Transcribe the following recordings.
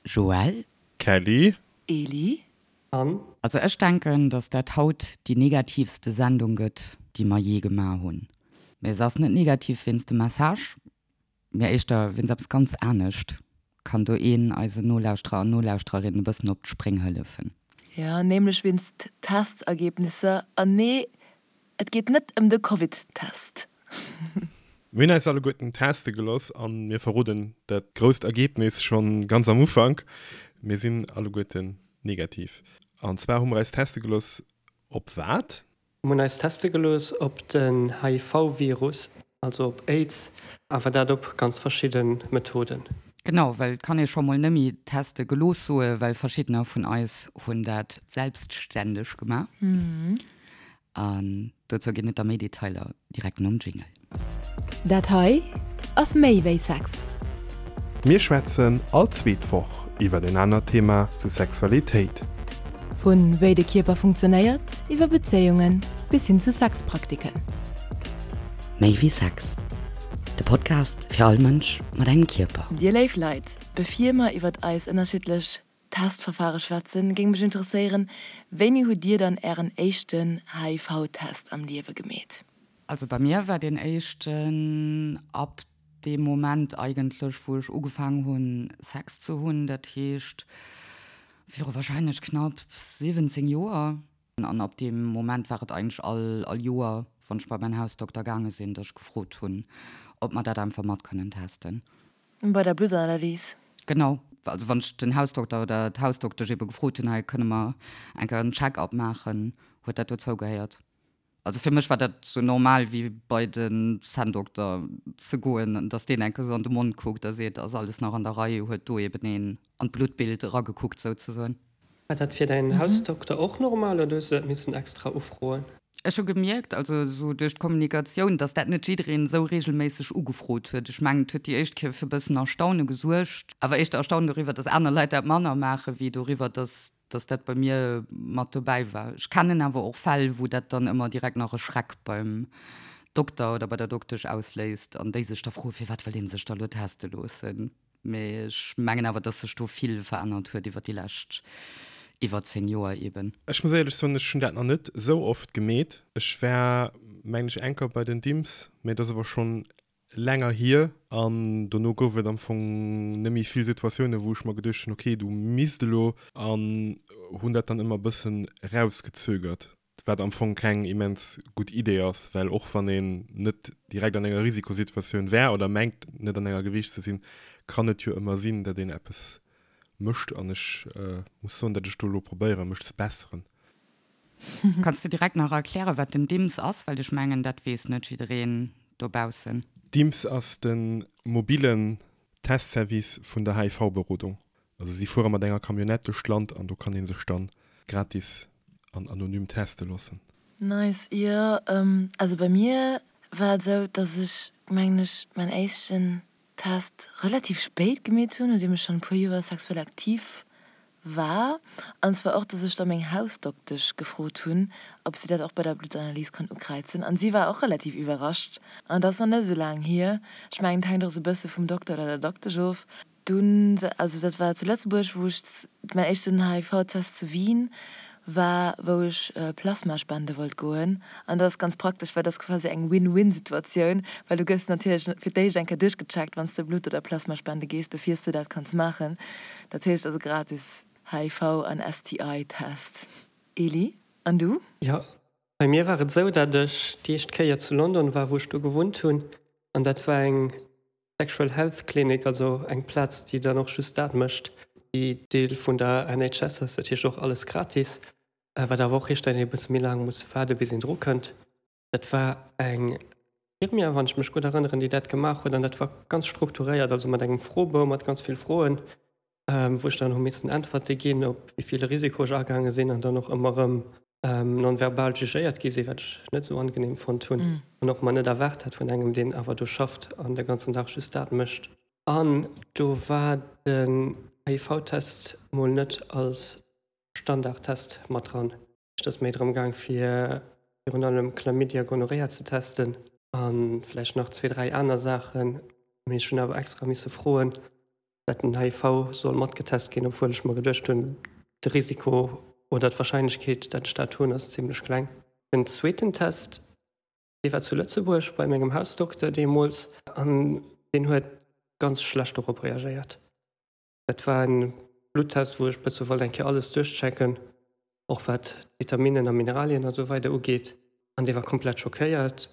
Joël. Kelly. Eli. An. Also ech denken, dass dat haut déi negativste Sendung gëtt, déi mer jee gemaach hunn. Mee se ass net negativ wéinst dem Message, mee éischter wéinst eppes ganz anescht. Kann do een eisen Nolauschterer an Nolauschtererinnen e bëssen op d'Spréng hëllefen? Jo, nämlech wéinst Testergebnisser. An nee, et geet net ëm de Covid-Test. Mir hunn eis alleguerten teste geloss an mir verroden dat grousst Ergebnis schonn ganz am Ufank, Mir sinn alleguerten negativ. An zwar hu mer eis teste geloss op wat? Mir hunn eis teste gelooss op den HIV-Virus, also op Aids, awer dat op ganz verschidde Methoden. Genau, well et kann ee scho mol nëmme teste gelooss soe, well verschiddener vun eis hunn dat selbstständeg gemaach. An dozou ginn et da méi Detailer direkt nom Jingle. Dat hei ass méi wéi Sex. Mir schwätzen all zweet Woch iwwer en anert Thema zu Sexualitéit. Vu wéi de Kierper funktionéiert, iwwer Bezéiungen bis hin zu Sexpraktiken. Méi wéi Sex, de Podcast fir all Mënsch mat engem Kierper. Dir léif Leit, bevir mer iwwert eis ënnerschiddlech Testverfare schwätzen, géing mech interesséieren, wéini hutt dir dann ären éischten HIV-Test am Liewe gemeet? Also bei mir war deen éischten ab deem Moment eigentlech wou ech ugefaang hunn Sex ze hunn, dat heescht viru wahrscheinlech knapp 17 Joer. An ab deem Moment war et eigentlech all all Joer wann ech bei mäin Hausdokter gaange sinn, dass ech gefrot hunn, ob mer dat einfach mat kënnen testen. Bei der Bluttanalys? Genau. Also wann ech den Hausdokter oder d'Hausdoktesch ebe gefrot hunn, hei kënne mer eng Kéier en Check-up maachen, huet dat dozou gehéiert. Also fir mech war dat sou normal wéi bei den Zänndokter ze goen, dass deen eng Kéier sou an de Mond kuckt a seet, ass alles nach an der Rei, huet do eben een an d'Bluttbild eragekuckt souzesoen. War dat fir däin Hausdokter och normal oder hues du dat missen extra ufroen? Ech hu gemierkt, also esou duerch d'Kommunikatioun, dass dat net jiddereen esou regelméisseg ugefrot huet. Ech mengen, et huet déi éischt Kéier fir e bëssen Erstaune gesuergt, awer éischter Erstaunen doriwwer, dass aner Leit dat manner maachen, wéi doriwwer, dass dass dat bei mir mat dobäi war. Ech kennen awer och Fäll, wou dat dann ëmmer direkt nach e Schreck beim Dokter oder bei der Doktesch ausléist an déi sech da froen, firwat wëll dee sech da lo teste loossen. Mee ech mengen awer, dass sech do vill verännert huet iwwer déi lescht iwwer 10 Joer eben. Ech muss éierlech soen, ech hunn dat nach net esou oft gemeet. Ech war, mengen ech, eng Kéier bei den Dimps, mee dat ass awer schonn länger hier. An dono gouf et am Fong net méi vill Situatiounen, wou ech mer geduecht hunn, okay, du misst elo, an hunn dat dann ëmmer e bëssen erausgezögert. Wat am Fong keng immens gutt Idee ass, well och wann een net direkt an enger Risikosituatioun wär oder mengt net an enger gewiescht ze sinn, kann et jo ëmmer sinn, datt een eppes mécht. An ech muss soen, datt ech do elo probéieren, mech ze besseren. Kanns du direkt nach erklären, wat den DIMS ass? Well ech mengen, dat weess net jiddereen dobaussen. DIMS ass de mobillen Testservice vun der HIV-Berodung. Also si fuere mat enger Camionnette duerch d'Land an do kann ee sech dann gratis an anonym teste loossen. Nice, jo also bei mir war et esou dass ech mengen ech mäin éischten Test relativ spéit gemeet hunn, nodeem ech schonn e puer Joer sexuell aktiv war, an zwar och dass ech da meng Hausdoktesch gefrot hunn ob si dat och bei der Bluttanalys kann ukräizen an si war och relativ iwwerrascht an dat ass nach net esou laang hier. Ech mengen et hänkt och esou e bësse vum Dokter oder der Doktesch of. Dunn, also dat war zu Lëtzebuerg, wou ech mäin éischten HIV-Test zu Wien war, wou ech Plasma spende wollt goen. An dat ass ganz praktesch, well dat ass quasi eng Win-Win-Situatioun, well du gëss natierlech fir d'éischt eng Kéier duerchgecheckt, wann s de Blutt oder Plasma spende gees, bevir s de dat kanns maachen. Dat heescht also gratis HIV an STI-Test. Elie, an du? Jo, bei mir war et esou, dat ech déi éischt Kéier zu London war, wou ech do gewunnt hunn, an dat war eng Sexual Health Clinic, also eng Plaz, déi dann och just dat mécht, déi Deel vun der NHS ass, dat heescht och alles gratis, wat awer och heescht, datt een e bësse méi laang muss waarde bis een dru kënnt. Dat war eng Infirmière, wann ech mech gutt erënneren, déi dat gemaach huet an dat war ganz strukturéiert, also mat engem Froebou mat ganz vill Froen, wou ech dann hu missen Äntwerte ginn, op wéi vill Risiko ech agaange sinn an dann och ëmmer erëm non-verbal jugéiert gi sinn, wat ech net esou angenehm fonnt hunn an och mer net erwaart hat vun engem, deen awer do schafft an de ganzen Dag just dat mécht. An do war den HIV-Test mol net als Standardtest mat dran. Et ass méi drëm gaang fir virun allem Chlamydia, Gonorrhea ze testen a vläicht nach zwee, dräi aner Saachen. Mee ech hunn awer extra misse froen. Dat den HIV soll matgetest ginn, obwuel ech mer geduecht hunn, de Risiko oder d'Warscheinlechkeet, dat ech dat hunn, ass zimmlech kleng. Den zweeten Test, dee war zu Lëtzebuerg bei mengem Hausdokter deemools an deen huet ganz schlecht dorop reagéiert. Dat war en Bluttest, wou ech bësse wollt eng Kéier alles duerchchecken, och wat d'Vitaminen a Mineralien a sou weider ugeet an dee war komplett schockéiert.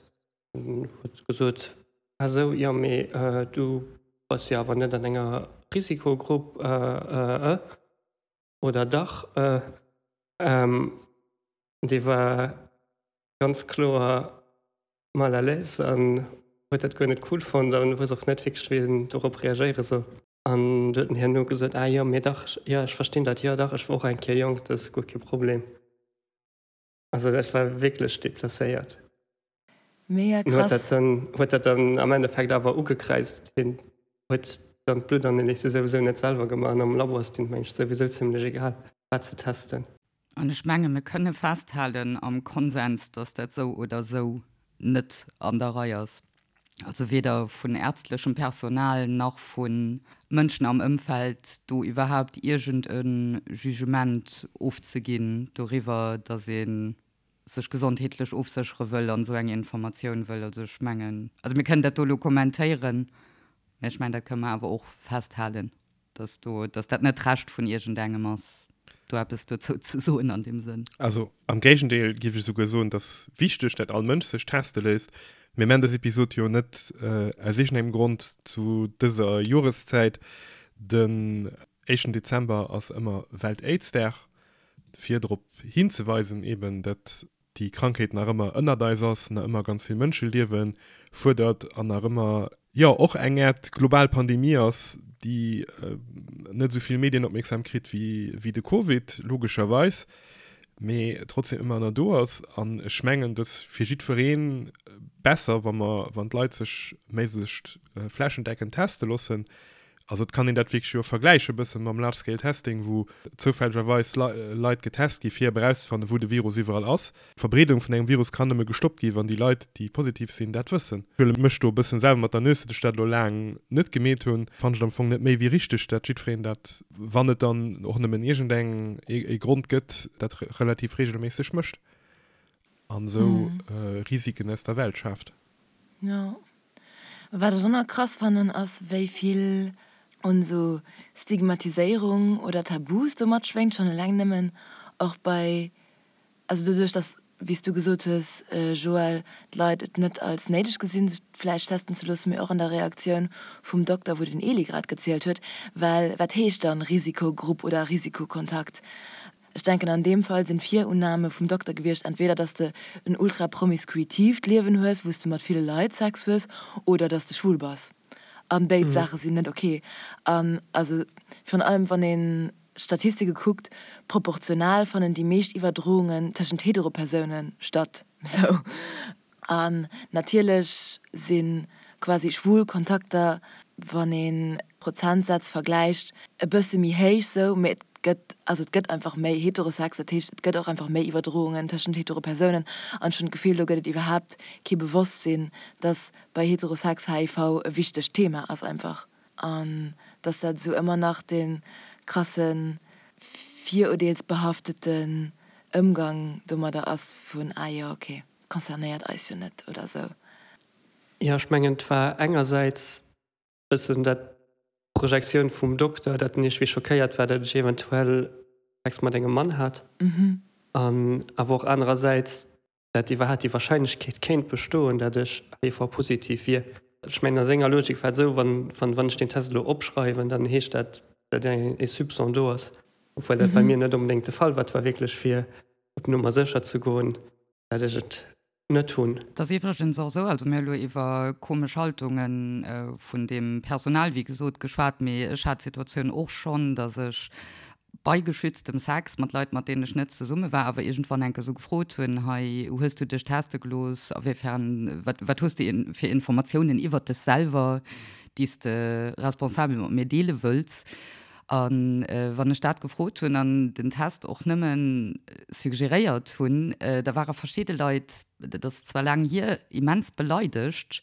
En huet gesot, Ah sou, jo, mee du bass jo awer net an enger Risikogrupp, äh, oder dach? Dee war ganz kloer mal à l'aise an huet dat guer net cool fonnt an wousst och net wierklech, wéi en dorop reagéiere soll. An du huet en herno gesot, Ah jo, mee dach, jo, ech verstinn dat, jo dach, ech war och eng Kéier jonk, dat ass guer kee Problem. Also dat war wierklech deplacéiert. Mega krass. Huet dat dann, huet dat dann am Endeffekt awer ugekräizt. Hien huet dann d'Bluttanalyse souwisou net selwer gemaach an am Labo ass deen, meng ech, souwisou zimmlech egal, wat se testen. An ech menge mir kënne festhalen am Konsens, datt dat sou oder sou net an der Rei ass. Also weder vun ärztlechem Personal nach vu Mënschen am Ëmfeld do iwwerhaupt iergend e Jugement ofzeginn doriwwer, datt ee sech gesondheetlech ofséchere wëll an esou eng Informatioun wëll. Also ech mengen, also mir kënnen dat do elo kommentéieren, mä ech mengen, dat kënne mer awer och festhalen. Dass do, dass dat net d'Recht vun iergendengem ass, do eppes dozou ze soen an deem Sënn. Also am Géigendeel géif ech esouguer soen, et ass wichteg, dat all Mënsch sech teste léisst. Mir man dës Episod jo net aus iergendengem Grond zu dëser Joreszäit. Den éischten Dezember ass ëmmer Welt-Aids-Dag, fir drop hinzeweisen eben, dat déi Krankheet nach ëmmer ënnert eis ass, nach ëmmer ganz vill Mënscheliewe fuerdert an nach ëmmer, jo, och eng Äert global Pandemie ass, déi net esou vill Medienopmierksam kritt wéi de Covid, logescherweis, mee trotzdem ëmmer nach do ass. An ech mengen, et ass fir jiddweree besser, wa mer, wann d'Leit sech méiglechst flächendeckend teste loossen, Also et kann een dat wierklech jo vergläiche bëssen mam Large Scale Testing, wou zoufällegerweis Leit getest gi fir erauszefannen, wou de Virus iwwerall ass. D'Verbreedung vun engem Virus kann nëmme gestoppt gi wann déi Leit, déi positiv sinn, dat wëssen. Ech huele mech do e bëssen selwer mat der Nues, datt ech dat elo laang net gemeet hunn. Fannen ech et am Fong net méi wéi richteg, dat jiddwereen dat, wann et dann och nëmmen iergendeng ee Grond gëtt, dat relativ reegelméisseg mécht an esou Risiken aus der Welt schaaft. Jo. Wat ech och nach krass fannen ass wéi vill un esou Stigmatiséierung oder Tabus do matschwéngt, schonn eleng nëmmen och bei, also doduerch dass, wéi s du gesot hues Joël, d'Leit et net als néideg gesinn sech vläicht testen ze loossen, mee och an der Reaktioun vum Dokter wou den Elie grad gezielt huet, well wat heescht dann Risikogrupp oder Risikokontakt? Ech denken an deem Fall sinn d'Virunnahme vum Dokter gewiescht, entweder dass de en ultra promiskuitiivt Liewen hues, wou s de mat ville Leit Sex hues, oder dass de schwul bass. An béid Saache sinn net ok. An also virun allem wann een d'Statistike kuckt, proportional fannen déi meescht Iwwerdroungen tëschent Heteropersoune statt. Sou. An natierlech si quasi schwul Kontakter, wann ee Prozentsätz vergläicht, e bësse méi héich sou, mee et gëtt, also et gëtt einfach méi Heterosex, dat heescht et gëtt och einfach méi Iwwerdroungen tëschent hetero Persounen. An ech hunn d'Gefill, do gëtt et iwwerhaapt kee Bewosstsinn, dass bei Heterosex HIV e wichtegt Thema ass einfach. An dass dat esou ëmmer nach dee krasse virurdeelsbehafteten Ëmgang domadder ass vun, ah jo, okay. Concernéiert eis jo net oder sou. Jo, ech mengen et war engersäits bëssen dat d'Projektioun vum Dokter, dat en iergendwéi schockéiert war, dat ech eventuell Sex mat engem Mann hat, an awer och anerersäits, dat iwwerhaapt déi Wahrscheinlechkeet kéint bestoen, dat ech HIV-positiv wier. Ech mengen a senger Logik war et esou, wann wann ech deen Test elo opschreiwen, dann heescht dat, dat e Soupçon do ass, obwuel dat bei mir net onbedéngt de Fall war. Et war wierklech fir op Nummer sécher ze goen, dat ech et net hunn. Et ass iwwregens och esou, also mir hu elo iwwer komesch Haltunge vun deem Personal, wéi gesot, geschwat, mee ech hat d'Situatioun och schonn, datt ech bei geschütztem Sex mat Leit, mat deenen ech net zesumme war, awer iergendwann enke sou gefrot hunn, hei, hues du dech teste gelooss, awéifern, wat, wat hues du fir Informatiounen iwwert dech selwer, déi s de responsabel mat mir deele wëlls? A wann ech dat gefrot hunn an den Test och nëmme suggeréiert hunn, da ware verschidde Leit, dat ass zwar laang hier, immens beleidegt,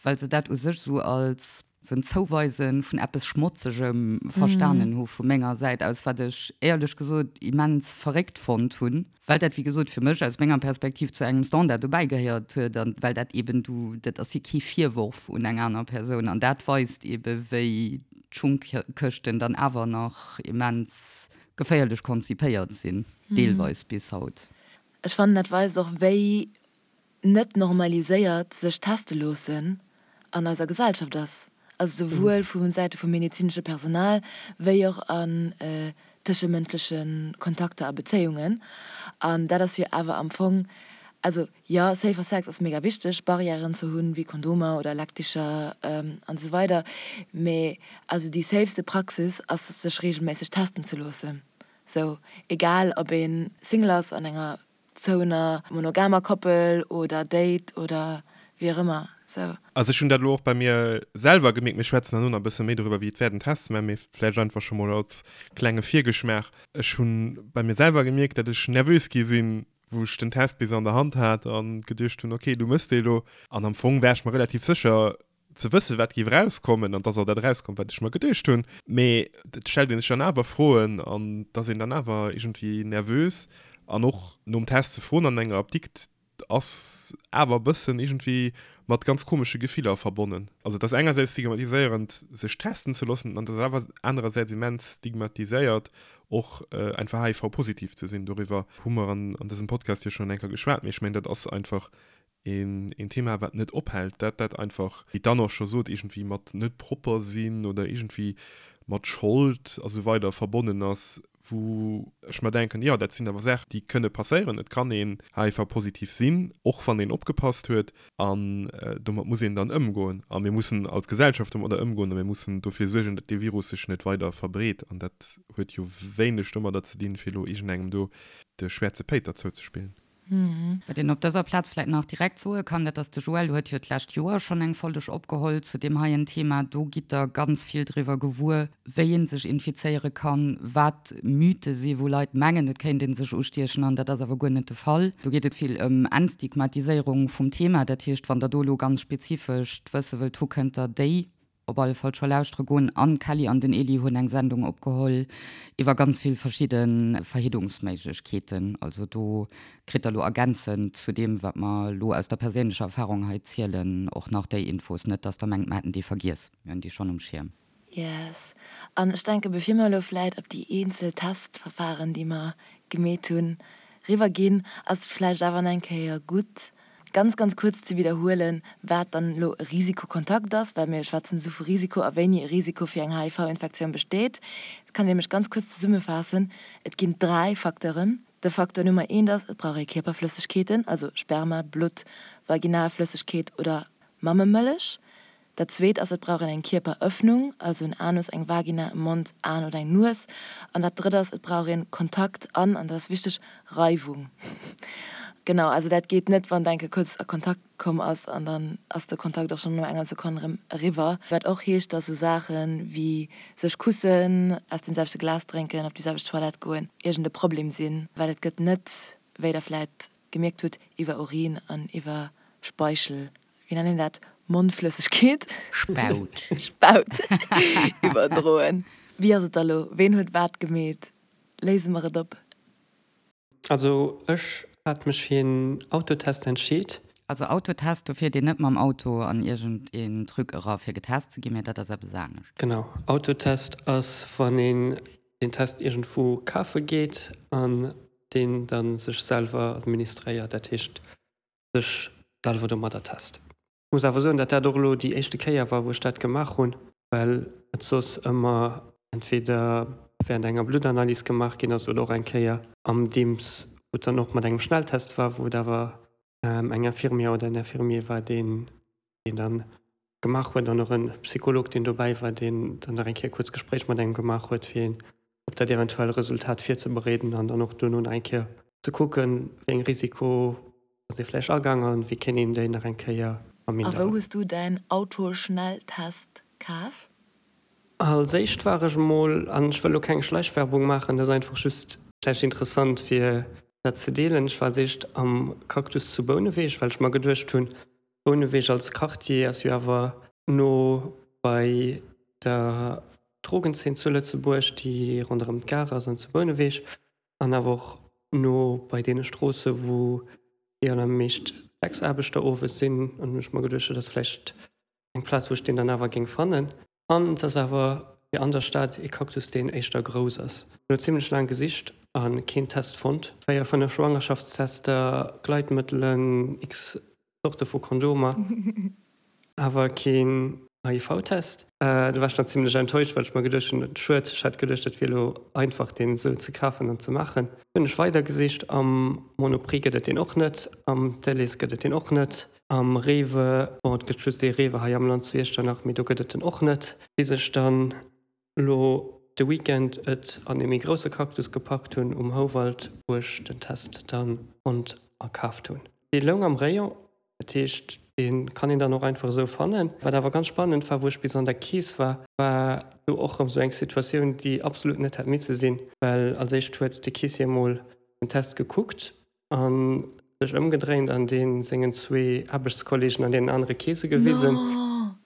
well se dat u sech esou als. Sou en Zouweise vun eppes Schmotzegem verstanen hu vu menger Säit aus, wat ech éierlech gesot immens verréckt fonnt hunn, well dat, wéi gesot, fir mech aus menger Perspektiv zu engem Standard dobäi gehéiert huet an well dat eben du, dat ass jo kee Virworf un eng aner Persoun an dat weist ebe wéi d'Schungkëschten dann awer nach immens geféierlech konzipéiert sinn, deelweis bis haut. Ech fannen dat weist och wéi net normaliséiert sech teste loossen an eiser Gesellschaft ass, also souwuel vu Säite vum medezinesche Personal wéi och an tëschemënschleche Kontakter a Bezéiungen. An dat ass jo awer am Fong, also jo, safer Sex ass mega wichteg, Barrièren ze hunn, wéi Kondomer oder Leckticher an esou weider, mee also déi safeste Praxis ass sech reegelméisseg testen ze loossen, sou egal ob ee Single ass an enger Zouener monogamer Koppel oder Date oder wéi och ëmmer sou. Also ech hunn dat elo och bei mir selwer gemierkt, mir schwätzen herno nach e bësse méi doriwwer wéi et wär den Test ze maachen, mee vläicht einfach scho mol als klenge Virgeschmaach, ech hu bei mir selwer gemierkt, dat ech nervös gi sinn, wou ech den Test bis an der Hand hat a geduecht hunn, okay, du mëss dee elo. An am Fong war ech mer relativ sécher, ze wëssen, wat géif erauskommen an dass och dat erauskomm, wat ech mer geduecht hunn. Mee et stellt ee sech dann awer Froen an et ass een dann awer iergendwéi nervös. An och nom Test ze froen an enger Apdikt ass awer e bëssen iergendwéi mat ganz komesche Gefiller verbonnen. Also et ass engersäits stigmatiséierend, sech testen ze loossen an et ass awer anerersäits immens stigmatiséiert, och einfach HIV-positiv ze sinn. Doriwwer hu mer an dësem Podcast jo schonn eng Kéier geschwat, mee ech mengen, dat ass einfach een Thema, wat net ophält, dat dat einfach, wéi d'Anne och scho sot, iergendwéi mat net propper sinn oder iergendwéi mat Schold a sou weider verbonnen ass, wou ech mer denken, jo, dat sinn awer Saachen, déi kënne passéieren. Et kann een HIV-positiv sinn, och wann een opgepasst huet, an domat muss een dann ëmgoen. A mir mussen als Gesellschaft domadder ëmgoen a mir mussen dofir suergen, datt dee Virus sech net weider verbreet. An dat huet jo wéineg domadder ze dinn, fir elo iergendengem do de schwäerze Péiter zouzespillen. Wat een op dëser Plaz vläit nach direkt soe kann, dat ass, de Joël huet jo d'lescht Joer schonn eng Folleg opgeholl zu deem heien Thema. Do gitt Der ganz vill driwwer gewuer, wéi ee sech infizéiere kann, wat Mythe si wou Leit mengen, et kéint ee sech ustiechen an dat ass awer guer net de Fall. Do geet et vill ëm Entstigmatiséierung vum Thema. Dat heescht, wann Der do elo ganz spezifescht wësse wëllt hu, kënnt Der déi Op alle Fall scho lauschtere goen. An d'Kelly an den Eli hunn eng Sendung opgeholl iwwer ganz vill verschidde Verhiddungsméiglechkeeten. Also do kritt der lo ergänzend zu deem, wat mer lo aus der perséinlecher Erfahrung hei zielen, och nach déi Infos. Net dass der mengt, mer hätten déi vergiess. Mir hunn déi schonn um Schierm. Yes. An ech denken, bevir mer elo vläit op déi eenzel Testverfahren, déi mer gemeet hunn, riwwerginn, ass et vläicht awer nach eng Kéier gutt, ganz, ganz kuerz ze widderhuelen, wat dann elo e Risikokontakt ass, well mir schwätzen esou vu Risiko a wéini e Risiko fir eng HIV-Infektioun besteet. Dat kann een nämlech ganz kuerz zesummefaassen, Et ginn dräi Facteuren. De Facteur Nummer eent ass, et brauch ee Kierperflëssegkeeten, also Sperma, Blutt, Vaginalflëssegkeet oder Mammemëllech. Dat zweet ass, et brauch een eng Kierperëffnung, also en Anus, eng Vagina, e Mond, Aen oder eng Nues. An dat drëtt ass, et brauch een Kontakt an, an dat ass wichteg, Reiwung. Genau, also dat geet net, wann d'enke kuerz a Kontakt komm ass an dann ass de Kontakt och schonn no enger Sekonn erëm eriwwer. Wat och heescht, dass esou Saache wéi sech kussen, aus dem selwechte Glas drénken, op déi selwecht Toilette goen, iergend e Problem sinn, well et gëtt net, wéi der vläit gemierkt hutt, iwwer Urin an iwwer Speichel wéi nennt een dat, Mondflëssegkeet? Spaut. Spaut iwwerdroen. Wéi ass et da lo? Ween huet wat gemeet? Léise mer et op. Also ech hat mech fir een Autotest entscheet. Also Autotest, do fiert een net mam Auto an iergend een Truc era fir getest ze ginn, mä dat ass eppes anescht. Genau, Autotest ass wann een deen Test iergendwou kafe geet an deen dann sech selwer administréiert, dat heescht sech selwer domadder test. Ech muss awer soen, datt dat och elo déi éischte Kéier war, wou ech dat gemaach hunn, well et soss ëmmer entweder während enger Bluttanalys gemaach ginn ass oder och eng Kéier am Dimps, wou et dann och mat engem Schnelltest war, wou et awer eng Infirmière oder en Infirmier war, deen deen dann gemaach huet an och en Psycholog, deen dobäi war, deen dann nach eng Kéier e kuerzt Gespréich mat engem gemaach huet, fir een op dat eventuell Resultat virzebereeden an dann och duerno nach eng Kéier ze kucken, wéi eng Risiko ass ee vläicht agaang an wéi kéint een déi nach eng Kéier A wou verminderen. hues du däin Autoschnelltest kaf? Als éischt war ech emol, an ech wëll elo keng Schleichwerbung maachen, dat ass einfach just vläicht interessant fir dat ze deelen, ech war als éischt am Cactus zu Bouneweg, well ech mer geduecht hunn, Bouneweg als Quartier ass jo awer no. bei der Drogenzeen zu Lëtzebuerg, déi ronderëm d'Gare ass an zu Bouneweg, an awer och no bei deene Stroosse wou déi allermeescht Sexaarbechter owes sinn. An hunn ech mer geduecht, dat ass vläicht eng Plaz wou ech deen dann awer géing fannen. An et ass awer fir an der Stad ee Cactus deen éischter grouss ass. Hunn elo zimlech laang gesicht a keen Test fonnt. 4, 5 Schwangerschaftstester, Gleitmëttelen, x Zorte vu Kondomer, awer keen HIV-Test. Do war ech dann zimlech enttäuscht, well ech mer geduecht hunn, schued, ech hat geduecht dat wier elo einfach deen esou ze kafen an ze maachen. Hunn ech weider gesicht, am Monoprix gëtt et deen och net, am Delhaize gëtt et deen och net, am Rewe, bon et gëtt just ee Rewe hei am Land zu Iechternach, mee do gëtt et en och net, bis ech dann elo de Weekend et an ee méi grousse Cactus gepackt hunn um Houwald, wou ech den Test dann fonnt a kaaft hunn. Dee loung am Rayon, dat heescht dee kann een dann och einfach esou fannen. Wat awer ganz spannend war, wou ech bis an der Kees war, war do och rëm esou eng Situatioun, déi absolut net hätt misse sinn, well als éischt huet de Keessier mol den Test gekuckt a sech ëmgedréint an dee sengen zwee Aarbechtskollegen an deenen anere Keese gewisen,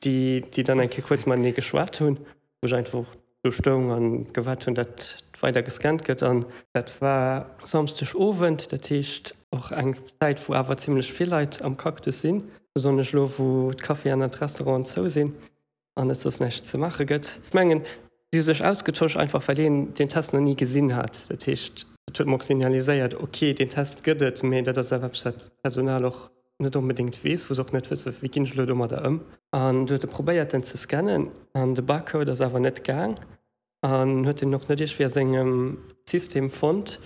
déi déi dann eng Kéier kuerz matenee geschwat hunn, wou ech einfach do stoung a gewaart hunn, datt weider gescannt gëtt. An dat war Samsdeg Owend, dat heescht och eng Zäit, wou awer zimmlech vill Leit am Cactus sinn, besonnesch elo wou d'Caféen an d'Restauranten zou sinn. an et soss näischt ze maache gëtt. Ech mengen, si hu sech ausgetosch, einfach well een deen Test nach ni gesinn hat. Dat heescht, dat huet mer och signaliséiert, ok, deen Test gëtt et, mee dat ass awer eppes, wat d'Personal och net onbedéngt weess, wou se och net wësse wéi ginn ech elo domadder ëm. An du huet e probéiert, en ze scannen an de Barcode ass awer net gaang an huet en och net iergendwéi a sengem System fonnt.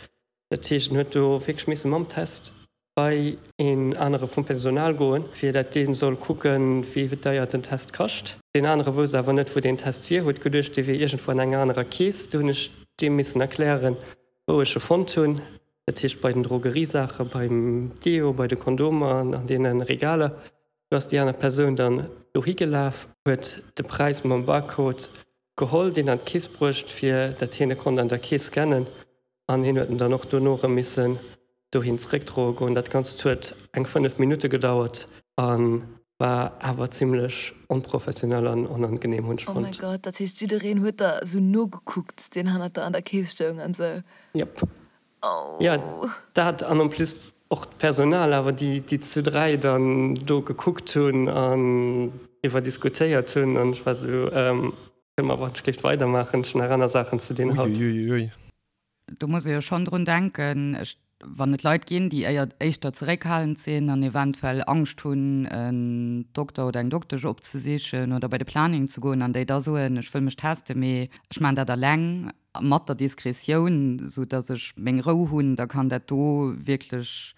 Dat heescht, en huet do wierklech misse mam Test bei een anere vum Personal goen, fir dat dee soll kucken, wéi deier den Test kascht. Deen anere wousst awer net, wou deen Test wier, huet geduecht, dee wier iergendwou an enger anerer Kees. Du hunn ech deem missen erklären, wou ech e fonnt hunn. Dat heescht bei den Drogeriesaache, beim Deo, bei de Kondomer an an deene Regaler. Du ass déi aner Persoun dann dohi gelaf, huet de Präis mam Barcode geholl, deen an d'Kees bruecht, fir dat hien e konnt an der Kees scannen. An hien huet en dann och dono erëm missen dohin zeréckdroe goen. Dat Ganzt huet eng 5 Minutte gedauert a war awer zimmlech onprofessionell an onangenehm, hunn ech fonnt. Oh mäi Gott, dat heescht jiddereen huet der esou nogekuckt, deen hannert der an der Kees stoung an esou? Jep. Jo, dat an en plus och d'Personal awer, déi déi zu 3 dann do gekuckt hunn an driwwer diskutéiert hunn an ech war esou, Kënne mer awer schlicht weidermaachen, ech hunn nach aner Saachen ze dinn haut. Uiuiuiui. Do muss ee jo schonn drun denken, ech, wann et Leit ginn, déi éier, éischter zeréckhalend sinn an eventuell Angscht hunn, en Dokter oder eng Doktesch opzesichen oder bei de Planning ze goen an déi da soen, ech wëll mech testen, mee ech maachen dat eleng mat der Diskretioun, sou datt ech meng Rou hunn, da kann dat do wierklech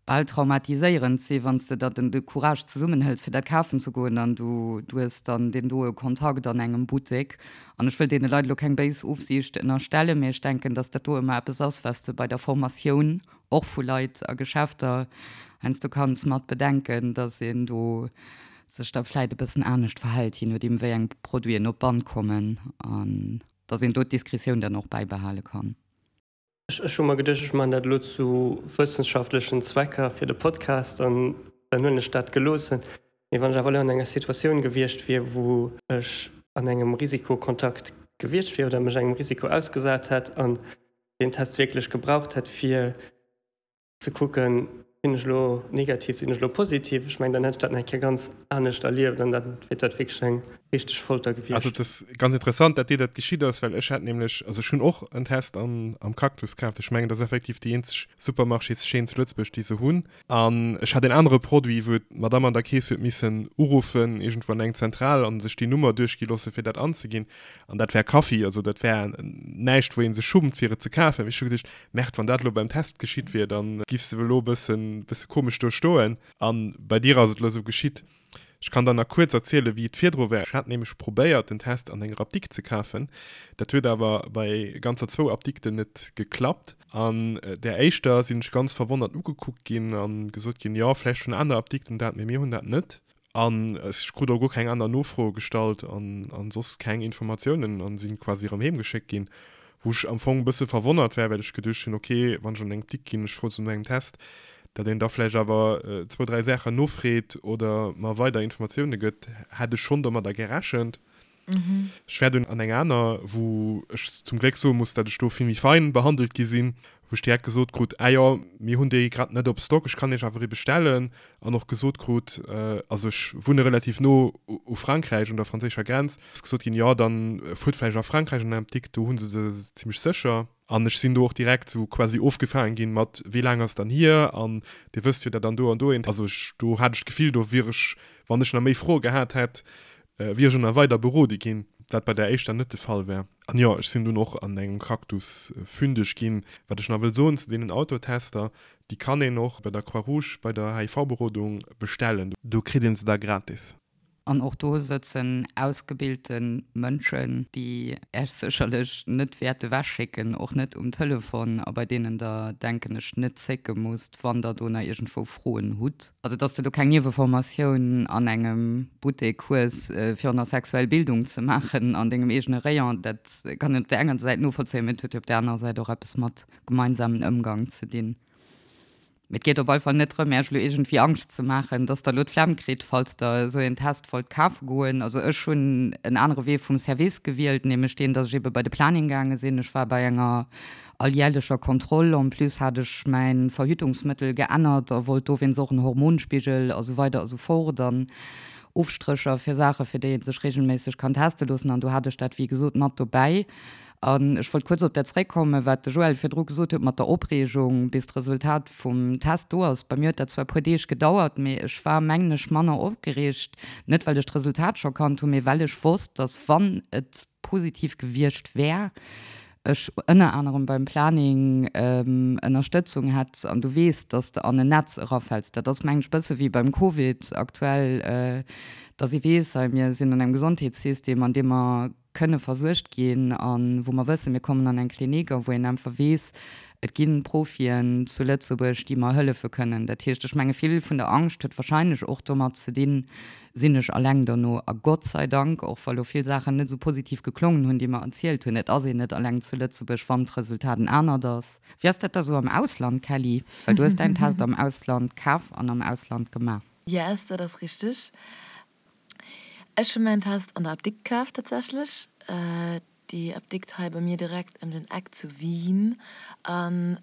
bal traumatiséierend si wann s de der den de Courage zesummenhëls fir dat kafen ze goen an du du hues dann deen doe Kontakt an engem Buttek. An ech wëll deene Leit elo keng béis Ofsiicht ënnerstellen, mee ech denken, datt dat do ëmmer eppes ass, wat s de bei der Formatioun och vu Leit a Geschäfter heiansdo kanns mat bedenken, datt een do sech da vläit e bëssen anescht verhält, je nodeem wéi eng Produiten op d'Band kommen an datt een do d'Diskretioun dann och bäibehale kann. Ech hu mer geduecht, ech maachen dat elo zu wëssenschaftlechen Zwecker fir de Podcast an dann hunn ech dat geloossen. Mee wann ech awer elo an enger Situatioun gewiescht wier, wou ech an engem Risikokontakt gewiescht wier oder mech engem Risiko ausgesat hätt an deen Test wierklech gebraucht hätt, fir ze kucken, sinn ech elo negativ, sinn ech elo positiv, ech mengen, dann hätt ech dat nach eng Kéier ganz anescht erlieft an da wier dat wierklech eng richteg Folter gewiescht. Also et ass ganz interessant, dat dir dat geschitt ass, well ech hat nämlech, also ech hunn och en Test an am Cactus kaaft, ech mengen, dat ass effektiv déi eenzeg Supermarchéschaîne zu Lëtzebuerg, déi se hunn, an ech hat en anere Produit, wou d'Madame an der Kees huet missen uruffen, iergendwou an eng Zentral, an sech déi Nummer duerchgi loosse fir dat anzeginn, an dat war Kaffi, also dat war näischt, wou ee sech schummt fir et ze kafen. Mee ech hu geduecht, Merde, wann dat elo beim Test geschitt wier, dann giffs de elo e bëssen, bësse komesch do stoen. An bei dir ass et elo esou geschitt. Ech kann der nach kuerz erzielen, wéi et virdru war. Ech hat nämlech probéiert, den Test an enger Apdikt ze kafen. Dat huet awer bei ganzer zwou Apdikten net geklappt. An där éischter sinn ech ganz verwonnert ugekuckt ginn a gesot ginn, jo, vläicht hunn aner Apdikten dat, mee mir hunn dat net. An ech krut och guer keng aner Nofroe gestallt an soss keng Informatiounen an sinn quasi erëm heem geschéckt ginn, wou ech am Fong e bësse verwonnert war, well ech geduecht hunn, ok, wann ech an eng Btick ginn, ech froe se no engem Test, datt een da vläicht awer zwou, dräi Saachen nofreet oder mer weider Informatioune gëtt, hätt ech schonn domadder gerechent. Ech war dunn an eng aner, wou ech zum Gléck soe muss, dat ech do vill méi fein behandelt gi sinn, wou ech direkt gesot krut, ah jo, mir hunn déi grad net op Stock, ech kann iech awer ee bestellen. An och gesot krut, also ech wunne relativ no u Frankräich, un der franséischer Grenz, ass gesot ginn, jo, dann fuert vläicht a Frankräich an den Apdikt, do hu se se zimmlech sécher. An ech sinn do och direkt sou quasi ofgefaangen ginn mat, wéi laang ass dann hier an dir wësst jo, dat an do an do eent. Also ech, do hat ech d'Gefill, do wier ech, wann ech nach méi Froe gehat hätt, wier ech och nach weider berode ginn, wat bei där éischter net de Fall war. An jo, ech sinn dunn och an engem Cactus fündeg ginn. Wat ech nach wëll soen zu deenen Autotester, déi kann een och bei der Croix-Rouge bei der HIV-Berodung bestellen. Do kritt een se da gratis. An och do sëtzen ausgebilte Mënschen, déi Äech sécherlech net wäerte wechschécken, och net um Telefon, a bei deenen Der, denken ech, net zécke musst, wann Der do nach iergendwou Froen hutt. Also, dass de do keng Nieweformatioun an engem Buttek hues, fir och nach sexuell Bildung ze maachen an dengem eegene Rayon, dat kann een op där enger Säit novollzéien, mä et huet jo op där anerer Säit och eppes mat gemeinsamen Ëmgang ze dinn. Mee et geet op alle Fall net drëm, Iech elo iergendwéi Angscht ze maachen, dass Der elo d'Flemm kritt, falls Der esou een Test wollt kafe goen. Also ech hunn en anere Wee vum Service gewielt, nämlech deen, dass ech ebe bei de Planning gaange sinn. Ech war bei enger alljärlecher Kontroll. En plus hat ech mäi Verhütungsmëttel geännert a wollt dowéinst och en Hormonspigel a sou weider a sou fort an Ofstrécher fir Saache fir déi ee sech regelméisseg kann teste loossen. An do hat ech dat wéi gesot mat dobäi. An ech wollt kuerz op dat zréckkommen, wat de Joël virdru gesot huet mat der Opreegung, bis d'Resultat vum Test do ass. Bei mir huet dat zwar e puer Deeg gedauert, mee ech war, mengen ech, manner opgereegt, net well ech d'Resultat scho kannt hunn, mee well ech wosst, dass, wann et positiv gewiescht wär, ech ënner anerem beim Planning Ënnerstëtzung hätt. An du weess, dass de an en Netz erafäls. Dat ass, mengen ech, e bësse wéi beim Covid aktuell, dass ee weess, hei, mir sinn an engem Gesondheetssystem, an deem mer kënne versuergt ginn a wou mer wëssen, mir kommen an eng Klinik a wou een einfach weess, et gi Profien zu Lëtzebuerg, déi mer hëllefe kënnen. Dat heescht, ech menge vill vun der Angscht huet wahrscheinlech och domat ze dinn, sinn ech alleng dono? A Gott sei Dank, och wa lo vill Saachen net esou positiv geklongen hunn, déi mer erzielt hunn, et ass een net alleng zu Lëtzebuerg, wann d'Resultat en anert ass. Wéi ass dat da sou am Ausland, Kelly? Well du hues däin Test am Ausland kaf an am Ausland gemaach. Yes, dat ass richteg. Ech hu mäin Test an der Apdikt kaf tatsächlech. Déi Apdikt hei bei mir direkt ëm den Eck zu Wien. An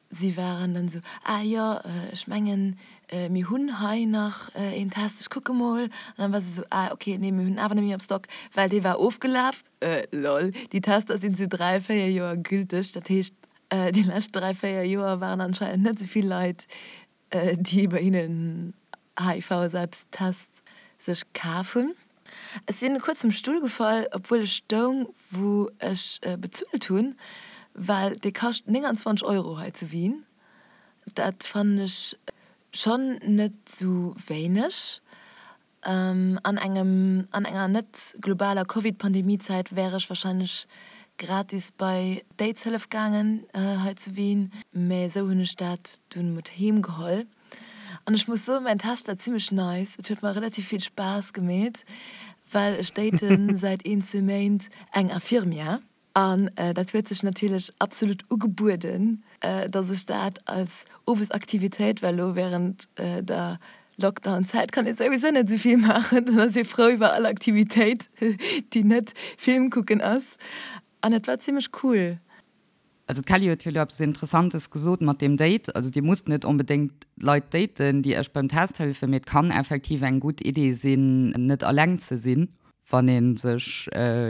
si waren dann esou, ah jo, ech mengen mir hunn hei nach een Test, ech kucke mol. An dann war se esou, ah ok, nee mir hunn en awer net méi am Stock, well dee war ofgelaf. Lol, déi Tester sinn esou 3, 4 Joer gülteg. Dat heescht déi lescht 3, 4 Joer waren anscheinend net esou vill Leit déi bei hinnen HIV-Selbsttest sech kaf hunn. Ech sinn kuerz vum Stull gefall, obwuel ech stoung wou ech bezuelt hunn, well dee kascht 29 Euro hei zu Wien. Dat fannen ech schonn net sou wéineg. An engem, an enger net globaler Covid-Pandemie-Zäit wär ech wahrscheinlech gratis bei d'Aidshëllef gaangen hei zu Wien, mä esou hunn ech dat dunn mat heem geholl. An ech muss soen, mäin Test war zimmlech nice, et huet mer relativ vill Spaass gemeet, well ech daten säit een, zwee Méint eng Infirmière. An dat huet sech natierlech absolut ugebueden, dass ech dat als Owesaktivitéit, well elo während der Lockdown-Zäit kann ee souwisou net esou vill maachen, dann ass ee frou iwwer all Aktivitéit, déi net Film kucken ass. An et war zimmlech cool. Also d'Kelly huet jo elo eppes Interessantes gesot mat deem Date. Also Dir musst net onbedéngt Leit daten, déi Iech beim Test hëllefen, mee et kann effektiv eng gutt Idee sinn, net alleng ze sinn. wann ee sech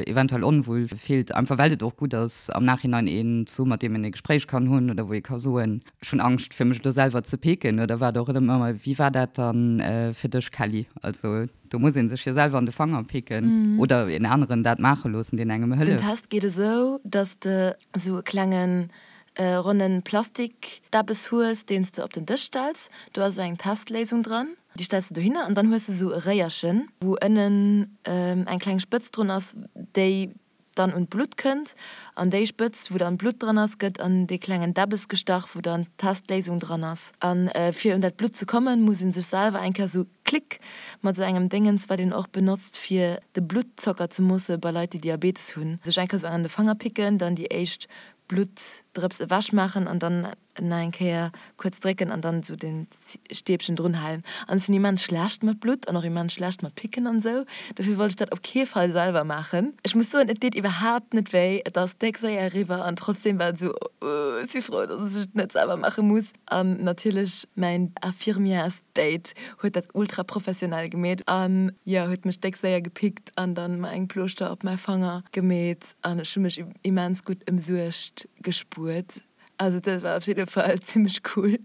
eventuell onwuel fillt, einfach well et och gutt ass am Nachhinein een ze hu mat deem een e Gespréich kann hunn oder wou ee ka soen, ech hunn Angscht fir mech elo selwer ze picken oder wat och ëmmer. Wéi war dat dann fir dech Kelly? Also do muss ee sech jo selwer an de Fanger picken oder een aneren dat maache loossen, deen engem Den hëlleft. Test geet esou, dass de esou e klengen ronnen Plastikdäbbes hues, deen s de op den Dësch stells. Do ass esou eng Testléisung dran. Déi stells de dohinner an dann hues de sou e Réierchen, wou ënnen eng kleng Spëtz drun ass, déi dann un d'Blutt kënnt. An déi Spëtz, wou dann d'Blutt dran ass, gëtt an dee klengen Däbbes gestach, wou dann d'Testléisung dran ass. A fir un dat Blutt ze kommen, muss ee sech selwer eng Kéier sou klick mat sou engem Déngens, wat een och benotzt fir de Bluttzocker ze moosse bei Leit, déi Diabetes hunn, sech eng Kéier sou an de Fanger picken, dann déi éischt Bluttdrëps ewechmaachen an dann. Nach eng Kéier kuerz drécken an dann esou den Stäbchen drun halen. An ech sinn immens schlecht mat Blutt an och immens schlecht mat Picken an esou. Dofir wollt ech dat op kee Fall selwer maachen. Ech muss soen, et deet iwwerhaapt net wéi, et ass déck séier eriwwer an trotzdem war et esou, oh, ech si frou, dass ech et net selwer maache muss. An natierlech mäin Infirmièresdate huet dat ultra professionell gemeet an jo, huet mech déck séier gepickt an dann mer eng Plooschter op mäi Fanger gemeet an ech hu mech immens gutt ëmsuergt gespuert. Also dat war op jidde Fall zimmlech cool.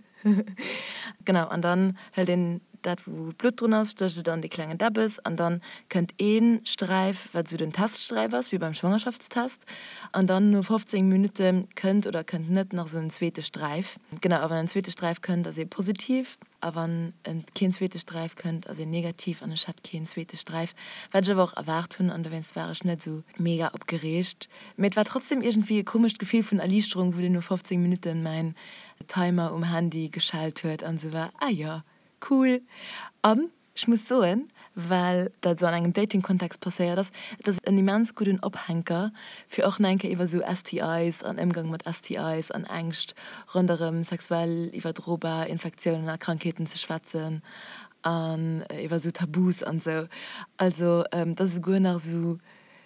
Genau, an dann hëlt een dat wou Blutt drun ass, stécht et an dee klengen Däbbes an dann kënnt ee Sträif, wat esou den Teststräif ass, wéi beim Schwangerschaftstest, an dann no 15 Minutte kënnt oder kënnt net nach esou en zweete Sträif. Genau, a wann en zweete Sträif kënnt, ass ee positiv a wann keen zweete Sträif kënnt, ass een negativ an ech hat keen zweete Sträif, wat ech awer och erwaart hunn an dowéinst war ech net esou mega opgereegt. Mee et war trotzdem iergendwéi e komescht Gefill vun Erliichterung, wou dunn no 15 Minutten mäin Timer um Handy geschellt huet an sou war, ah jo, cool. An ech muss soen, well dat sou an engem Dating-Kontext passéiert ass, et ass en immens gudden Ophänker fir och nach eng Kéier iwwer sou STIs an Ëmgang mat STIs an Ängscht ronderëm sexuell iwwerdrobar Infektiounen a Krankheeten ze schwätzen an iwwer sou Tabus an sou. Also et ass esouguer nach esou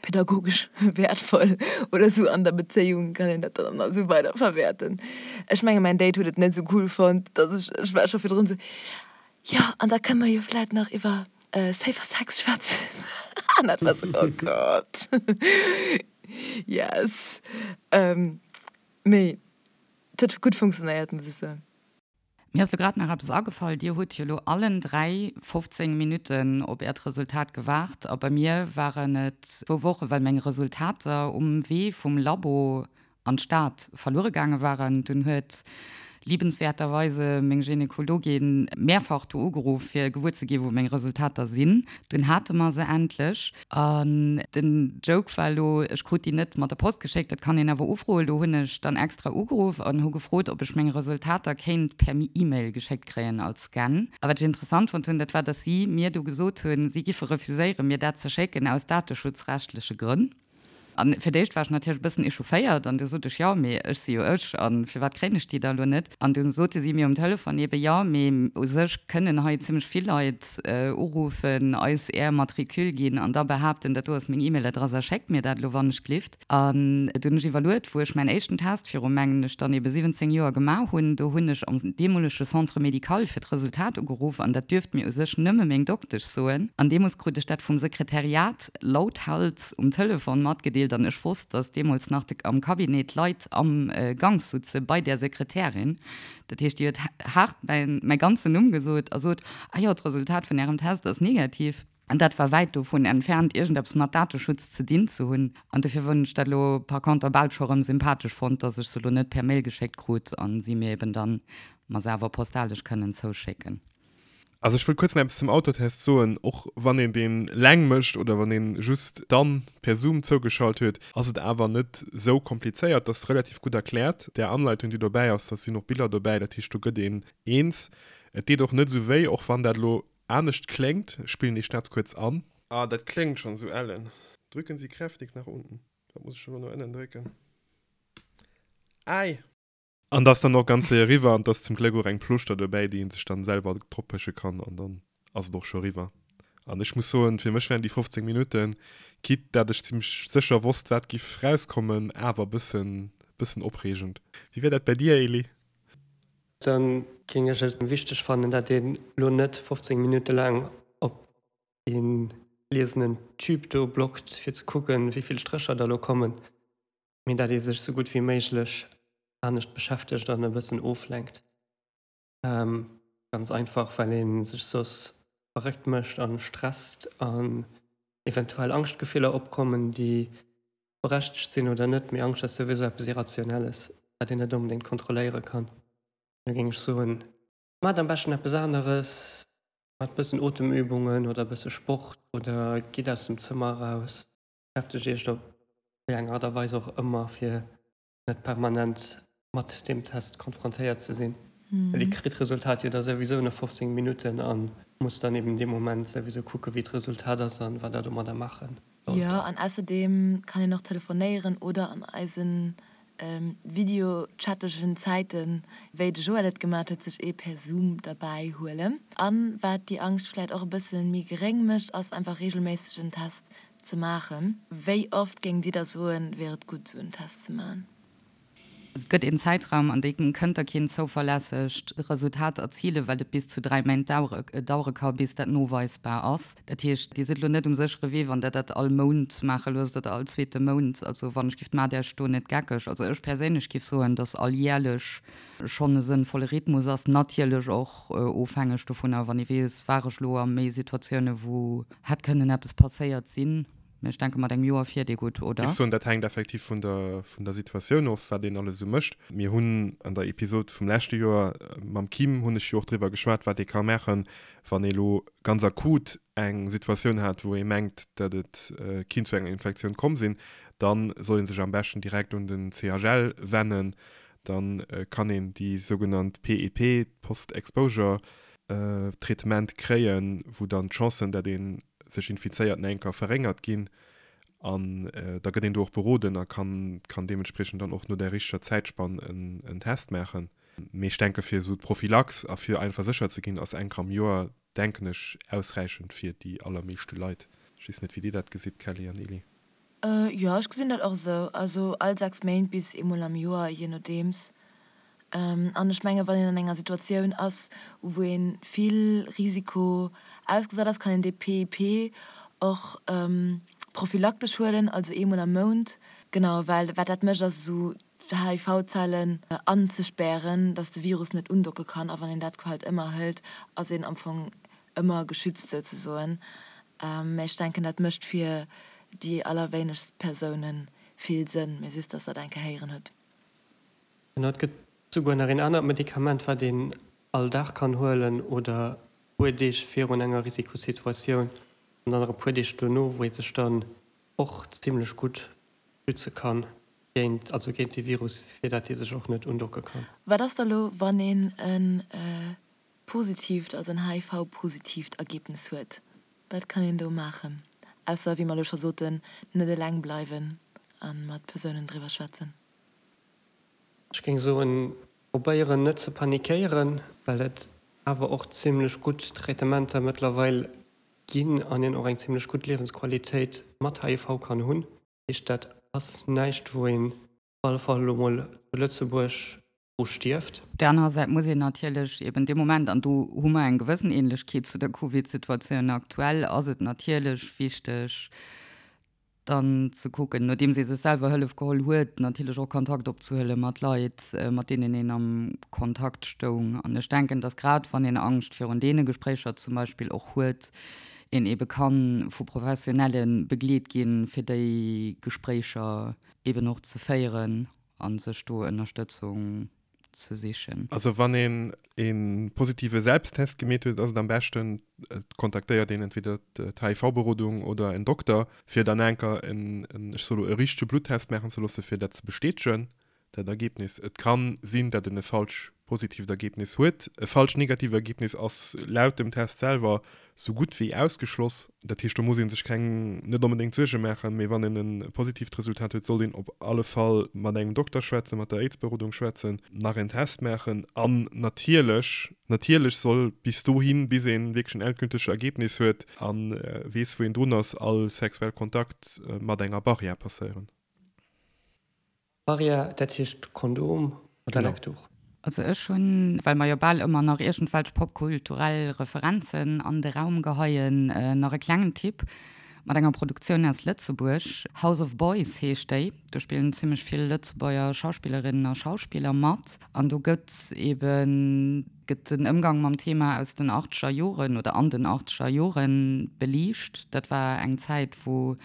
pädagogesch wäertvoll oder sou an der Bezéiung kann een dat dann esou weider verwäerten. Ech menge mäin Date huet et net esou cool fonnt, dass ech, ech war scho virdrun esou, jo an da kënne mer jo vläit nach iwwer safer Sex schwätzen an dat war esou, oh Gott, yes. Mee et huet gutt funktionéiert, muss ech soen. Mir ass lo grad nach eppes agefall, Dir hutt jo lo allen 3 15 Minutten op Äert Resultat gewaart a bei mir waren et zwou Woche well meng Resultater um Wee vum Labo an d'Stad verluere gaange waren. Dunn huet liebenswerterweise meng Gynekologin mehrfach do ugeruff fir gewuer ze gi wou meng Resultater sinn. Dunn hate mer se endlech. An den Joke war elo, ech krut déi net mat der Post geschéckt, dat kann een awer ufroen. Do hunn ech dann extra ugeruff an hu gefrot, ob ech meng Resultater kéint per E-Mail geschéckt kréien als Scan. A wat ech interessant fonnt hunn, dat war, dass si mir du gesot hunn, si giffe refuséieren, mir dat ze schécken aus dateschutzrechtleche Grënn. An fir d'éischt war ech natierlech e bëssen echaufféiert an du sot ech, jo, mee ech si jo ech a firwat kréien ech déi da elo net? An du sote si mir um Telefon eebe, jo, mee u sech kënnen hei zimmlech vill Leit uruffen, eis är Matricule ginn an da behaapten, dat do ass meng E-Mail-Adress a schéckt mir dat elo wannechglift. An du hunn ech iwwerluet, wou ech mäin éischten Test viru, mengen ech, dann eebe 17 Joer gemaach hunn, do hunn ech am deemolege Centre médical fir d'Resultat ugeruff an dat duerft mir u sech nëmme meng Doktesch soen. An deemools krut ech dat vum Sekretariat lauthals um Telefon matgedeelt an ech wosst, dass deemools nach de am Cabinet Leit am Gank sutze bei där Sekretärin. Dat heescht, déi huet haart mäin mäi ganzen Numm gesot a sot, Ah jo, d'Resultat vun Ärem Test ass negativ. An dat war wäit dovun entfernt, iergendeppes mat Dateschutz ze dinn ze hunn. An dofir hunn ech dat elo par conter bal scho rëm sympathesch fonnt, dass ech se elo net per Mail geschéckt krut a si mir eben dann mer se awer postalesch kënnen zouschécken. Also ech wëll kuerz nach eppes zum Autotest soen, och wann een deen leng mécht oder wann een just dann per Zoom zougeschalt huet, ass et awer net sou komplizéiert, dat ass relativ gutt erkläert. Där Anleitung déi dobäi ass, da sinn och Biller dobäi, dat heescht do gëtt een eens. Et deet och net sou wéi, och wann dat elo anescht kléngt. Ech spillen déi Schnatz kuerz an. Ah dat kléngt schonn sou ellen. Drücken Sie kräftig nach unten. Wat muss ech elo no ënnen drécken? Äi! An dat ass dann och ganz séier eriwwer an et ass zum Gléck och eng Plooschter dobäi, déi ee sech dann selwer droppeche kann an dann ass et och scho eriwwer. An ech muss soen, fir mech waren déi 15 Minutten, quitte dat ech zimmlech sécher wosst, wat giff rauskommen, awer e bëssen, bëssen opreegend. Wéi war dat bäi dir, Elie? Dann géing ech et wichteg fannen, dat een elo net 15 Minutte laang op dee gliesenen Tube do blockt, fir ze kucken, wéi vill Strécher da elo kommen. mee dat ee sech sou gutt wéi méiglech anescht beschäftegt an e bëssen oflenkt. Ganz einfach, well ee sech soss verréckt mécht a stresst an eventuell Angschtgefiller opkommen, déi berechtegt sinn oder net. Mee Angscht ass souwisou eppes Irrationelles, wat een net onbedéngt kontrolléiere kann. Da géing ech soen, maacht am beschten eppes aneres, maacht e bëssen Otemübungen oder e bësse Sport oder gitt aus dem Zëmmer eraus. Beschäftegt Iech op wéi eng Art a Weis och ëmmer, fir net permanent mat deem Test konfrontéiert ze sinn. Well Dir kritt d'Resultat jo da souwisou no 15 Minutten a musst dann eben dee Moment souwisou kucke wéi d'Resultat ass an wat Der domadder maache sollt. Jo, an ausserdeem kann een och telefonéieren oder an eisen. videochattegen Zäiten, wéi de Joël et gemat huet, sech ee per Zoom derbäi huelen. An wat déi Angscht vläit och e bësse méi geréng mécht, ass einfach regelméisseg en Test ze maachen. Wéi oft géingt Dir da soen, wier et gutt esou en Test ze maachen? Et gëtt een Zäitraum, an deem kënnt Der keen zouverlässegt Resultat erzilen, well et bis zu 3 Méint dauere ka bis dat noweisbar ass. Dat heescht, Dir sidd elo net um séchere Wee, wann Der dat all Mount maache loosst oder all zweete Mount. Also wann ech giff, maacht Iech do net geckeg. Also ech perséinlech giff soen, dass alljärlech schonn e sënnvolle Rhythmus ass. Natierlech och ofhängeg dovunner, wann ee weess, war ech elo a méi Situatioune wou hätt kënnen eppes passéiert sinn. Mee ech denke mat engem Joer fiert ee gutt, oder? Géif soen, dat hänkt effektiv vun der vun der Situatioun of, wat een alles esou mécht. Mir hunn an der Episod vum leschte Joer mam Kim hunn ech jo och driwwer geschwat, wat ee ka maachen, wann ee lo ganz akut eng Situatioun hat, wou ee mengt, datt et kinnt zu enger Infektioun komm sinn. Da soll ee sech am beschten direkt un den CHL wennen. Da kann een déi sougenannt PEP, Post-Exposure Traitement, kréien, wou dann d'Chancen, datt ee sech infizéiert nach eng Kéier verréngert ginn an da gëtt een do och beroden a kann kann deementspriechend dann och no där richteger Zäitspann en en Test maachen. Mee ech denke fir esou d'Prophylax a fir einfach sécher ze ginn, ass eng Kéier am Joer, denken ech, ausräichend fir déi allermeeschte Leit. Ech weess net wéi Dir dat gesitt, Kelly an Elie. Jo, ech gesinn dat och esou. Also all 6 Méint bis eemol am Joer, jee nodeems. An ech menge wann een an enger Situatioun ass, wou ee vill Risiko ausgesat ass, kann een dee PIP och prophylaktesch huelen, also eemol am Mount. Genau, well wat dat mécht ass esou d'HIV-Zellen anzespären, datt de Virus net undocke kann. A wann een dat halt ëmmer hëlt, ass een am Fong ëmmer geschützt souzesoen. Mä ech denken, dat mécht fir déi allerwéinegst Persoune vill Sënn, mä just, datt Der dat eng Kéier héieren hutt. Genau, et gëtt souguer nach een anert Medikament, wat een all Dag kann huelen oder e puer Deeg virun enger Risikosituatioun an dann nach e puer Deeg dono, wou ee sech dann och zimlech gutt schütze kann géint, also géint dee Virus, fir dat dee sech och net undocke kann. Wat ass da lo, wann een e positiivt, also en HIV-positiivt Ergebnis huet? Wat kann een do maachen, ausser, wéi mer elo scho soten, net eleng bleiwen a mat Persounen driwwer schwätzen? Ech géing soen, probéieren net ze panikéieren, well et awer och zimlech gutt Traitementer mëttlerweil ginn an een och eng zimlech gutt Liewensqualitéit mat HIV kann hunn. Dat heescht, dat ass näischt, wou een op alle Fall elo mol zu Lëtzebuerg dru stierft. Op där anerer Säit muss een natierlech eben dee Moment, an do hu mer eng gewëssen Ähnlechkeet zu der Covid-Situatioun aktuell, ass et natierlech wichteg, dann ze kucken, nodeems ee sech selwer Hëllef geholl huet, natierlech och Kontakt opzehuele mat Leit, mat deenen een am Kontakt stoung. An ech denken, datt grad wann een Angscht virun deene Gespréicher zum Beispill och huet, een eebe ka vu Professionelle begleet ginn, fir déi Gespréicher eeben och ze féieren a sech do Ënnerstëtzung ze sichen. Also wann een e positive Selbsttest gemeet huet, ass et am beschten et kontaktéiert een entweder d'HIV-Berodung oder en Dokter, fir dann enker en, ech soe lo, e richtege Bluttest maachen ze loossen, fir dat ze bestätegen, dat Ergebnis. Et ka sinn, datt en e falsch positiivt Ergebnis huet. E falsch negatiivt Ergebnis ass laut dem Test selwer sou gutt wéi ausgeschloss. Dat heescht, do muss ee sech keng, net onbedéngt Suerge maachen, mee wann een e positiivt Resultat huet, sollt een op alle Fall mat engem Dokter schwätzen, mat der Aids-Berodung schwätzen, nach en Test maachen an natierlech, natierlech soll bis dohin, bis ee wierklech en endgültege Ergebnis huet a weess, wou een drun ass, all sexuell Kontakt mat enger Barrière passéieren. Barrière, dat heescht Kondom oder Leckduch. Also ech hunn, well mer jo bal ëmmer nach iergendwelch popkulturell Referenzen an de Raum geheien, nach e klengen Tipp mat enger Produktioun aus Lëtzebuerg. House of Boys heescht déi. Do spillen zimmlech vill Lëtzebuerger Schauspillerinnen a Schauspiller mat. An do gëtt eben gëtt den Ëmgang mam Thema aus den achtzeger Joren oder an den achtzeger Joren beliicht. Dat war eng Zäit, wou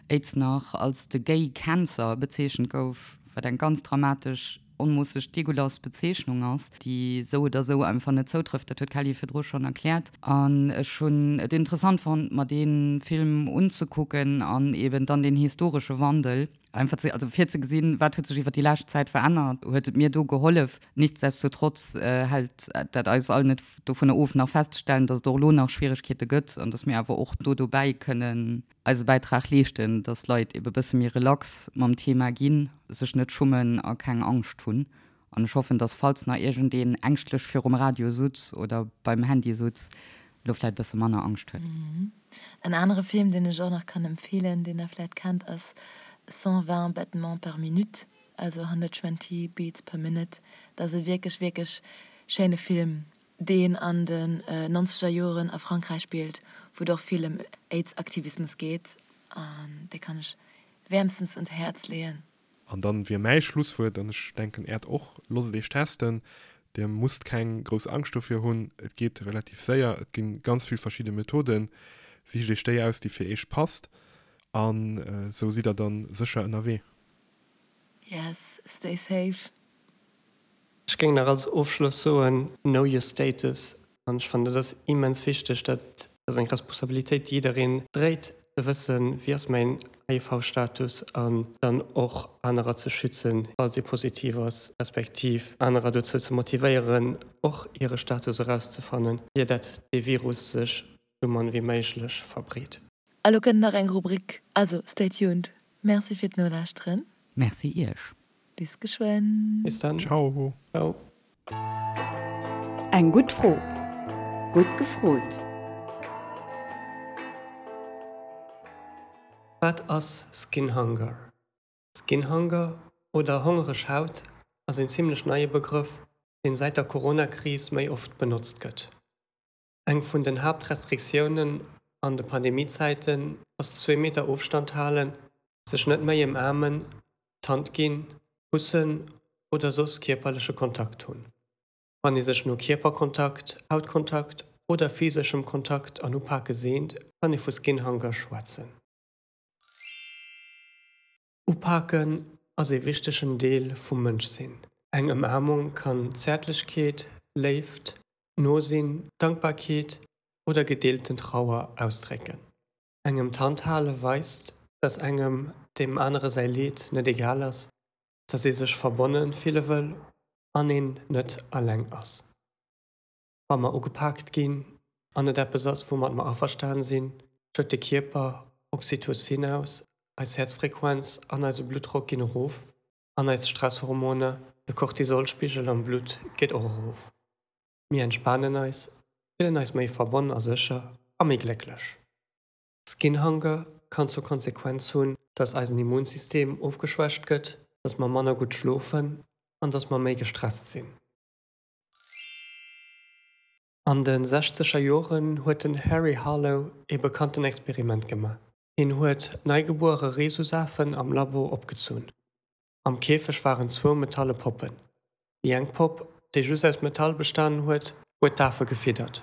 Aids nach als de Gay Cancer bezeechent gouf, wat eng ganz dramatesch, onmoosseg degueulasse Bezeechnung ass, déi esou oder esou einfach net zoutrëfft. Dat huet d'Kelly virdru schonn erkläert. An ech hunn et interessant fonnt, mer dee Film unzekucken an eben dann deen historesche Wandel. Einfach ze, also fir ze gesinn, wat huet sech iwwer déi lescht Zäit verännert, huet et mir do gehollef. Nichtsdestotrotz hält dat eis all net dovunner of, nach festzestellen, dass et och elo nach Schwieregkeete gëtt an dass mir awer och do dobäi kënnen eise Bäitrag leeschten, dass Leit ebe bësse méi relax mam Thema ginn, sech net schummen a keng Angscht hunn. An ech hoffen, dass falls nach iergendeen ängschtlech virum Radio sutz oder beim Handy sutz, elo vläit bësse manner Angscht huet. En anere Film, deen ech och nach kann empfeelen, deen der vläit kennt, ass 120 battements par minute, also 120 beats per minute. Dat ass e wierklech, wierklech schéine Film, deen an den nonzeger Joren a Frankräich spillt, wou et och vill ëm Aids-Aktivismus geet. An dee kann ech wäermstens un d'Häerz leeën. An dann wier mäi Schlusswuert, an ech denken äert och, Losst et iech testen. Dir musst keng grouss Angscht dofir hunn. Et geet relativ séier. Et gi ganz vill verschidde Methoden. Sicht iech déi aus, déi fir iech passt. An esou sidd der dann sécher ënnerwee. Yes, stay safe. Ech géing nach als Ofschloss soen, know your status. An ech fannen, dat ass immens wichteg. Dat ass eng Responsabilitéit, déi jiddereen dréit, ze wëssen, wéi ass mäin HIV-Status an dann och anerer ze schützen, falls ee positiv ass, respektiv anerer dozou ze motivéieren, och hire Status erauszefannen, ier dat dee Virus sech sou mann wéi méiglech verbreet. A lo kënnt nach eng Rubrik, also stay tuned. Merci fir d'Nolauschteren. Merci iech. Bis geschwënn. Bis dann. Ciao. Ciao. Eng gutt Fro. Gutt gefrot. Wat ass Skin Hunger? Skin Hunger oder hongereg Haut ass een zimmlech neie Begrëff, deen säit der Corona-Kris méi oft benotzt gëtt. Eng vun den Haaptrestriktiounen an de Pandemiezäiten ass zwee Meter Ofstand halen, sech net méi ëmaarmen, d'Hand ginn, kussen oder soss kierperleche Kontakt hunn. Wann ee sech no Kierperkontakt, Hautkontakt oder physeschem Kontakt an Upake seent, kann ee vu Skin Hunger schwätzen. Upaken ass ee wichtegen Deel vum Mënschsinn. Eng Ëmaarmung kann Zäertlechkeet, Léift, Nosinn, Dankbarkeet oder gedeelten Trauer ausdrécken. Engem d'Hand hale weist, dass engem deem anere säi Leed net egal ass, dass ee sech verbonne fille wëll an een net eleng ass. Wa mer ugepaakt ginn an et eppes ass, woumat mer averstan sinn, schëtt de Kierper Oxytocin aus, eis Häerzfrequenz an eise Bluttdrock ginn erof an eis Stresshormoner, de Cortisolspigel am Blutt geet och erof. Mir entspanen eis, fillen eis méi verbonn a sécher a méi glécklech. Skin Hunger kann zur Konsequenz hunn, dass eisen Immunsystem ofgeschwächt gëtt, dass mer manner gutt schlofen an dass mer méi gestresst sinn. An de sechzeger Joren huet den Harry Harlow ee bekannten Experiment gemaach. Hien huet neigebuere Rhesusafen am Labo opgezunn. Am Käfeg waren zwou metalle Poppen. Déi eng Popp, déi just aus Metall bestanen huet, huet d'Afe gefiddert.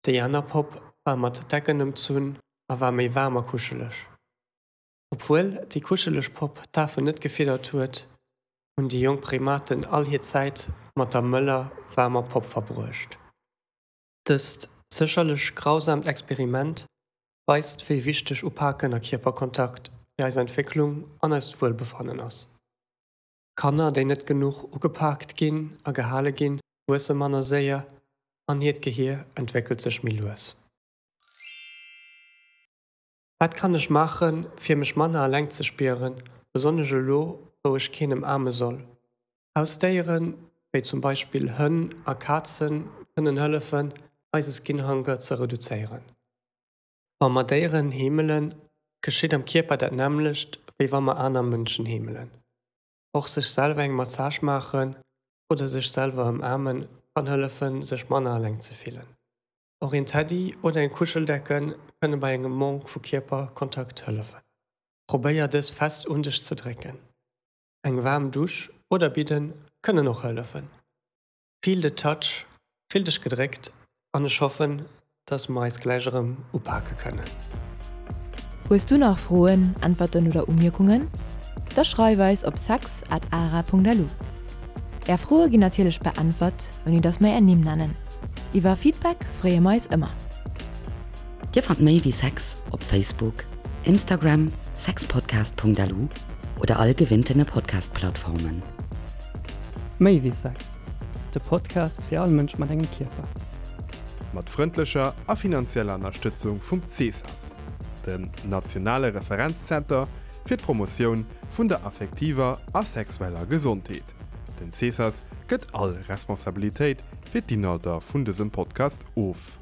Déi aner Popp war mat Decken ëmzunn a war méi waarm a kuscheleg. Obwuel déi kuscheleg Popp d'Afen net gefiddert huet, hunn déi jonk Primaten all hir Zäit mat der mëller, waarmer Popp verbruecht. Dëst sécherlech grausaamt Experiment weist, wéi wichteg Upaken a Kierperkontakt fir eis Entwécklung an eist Wuelbefannen ass. Kanner, déi net genuch ugepaakt ginn a gehale ginn, wuesse manner séier an hiert Gehier entwéckelt sech méi lues. Wat kann ech maachen, fir mech manner eleng ze spieren, besonnesch elo, wou ech keen ëmaarme soll? Hausdéieren, wéi zum Beispill Hënn a Kazen, kënnen hëllefen, eise Skin Hunger ze reduzéieren. Wa mer Déieren heemelen, geschitt am Kierper dat nämmlecht, wéi wa mer aner Mënschen heemelen. Och sech selwer eng Massage maachen oder sech selwer ëmaarmen kann hëllefen, sech manner eleng ze fillen. Och een Teddy oder eng Kuscheldecke kënne bei engem Manque vu Kierperkontakt hëllefen. Probéier dës fest un dech ze drécken. Eng waarm Dusch oder Bidden kënnen och hëllefen. Feel the touch, fill dech gedréckt an ech hoffen, dass mer eis gläich erëm upake kënnen. Hues du nach Froen, Äntwerten oder Umierkungen? Da schreif eis op sex at ara.lu. Är Froe ginn natierlech beäntwert, ouni dass mer är Nimm nennen. Iwwer Feedback freeë mer eis ëmmer. Dir fannt méi wéi Sex op Facebook, Instagram, sexpodcast.lu. oder all gewinntene Podcast-Plattformen. Méi wéi Sex, de Podcast fir all Mënsch mat engem Kierper. Mat frëndlecher a finanzieller Ënnerstëtzung vum CSAS, dem nationale Referenzzenter fir d'Promotioun vun der affektiver a sexueller Gesondheet. Den CSAS gëtt all Responsabilitéit fir d'Inhalter vun dësem Podcast of.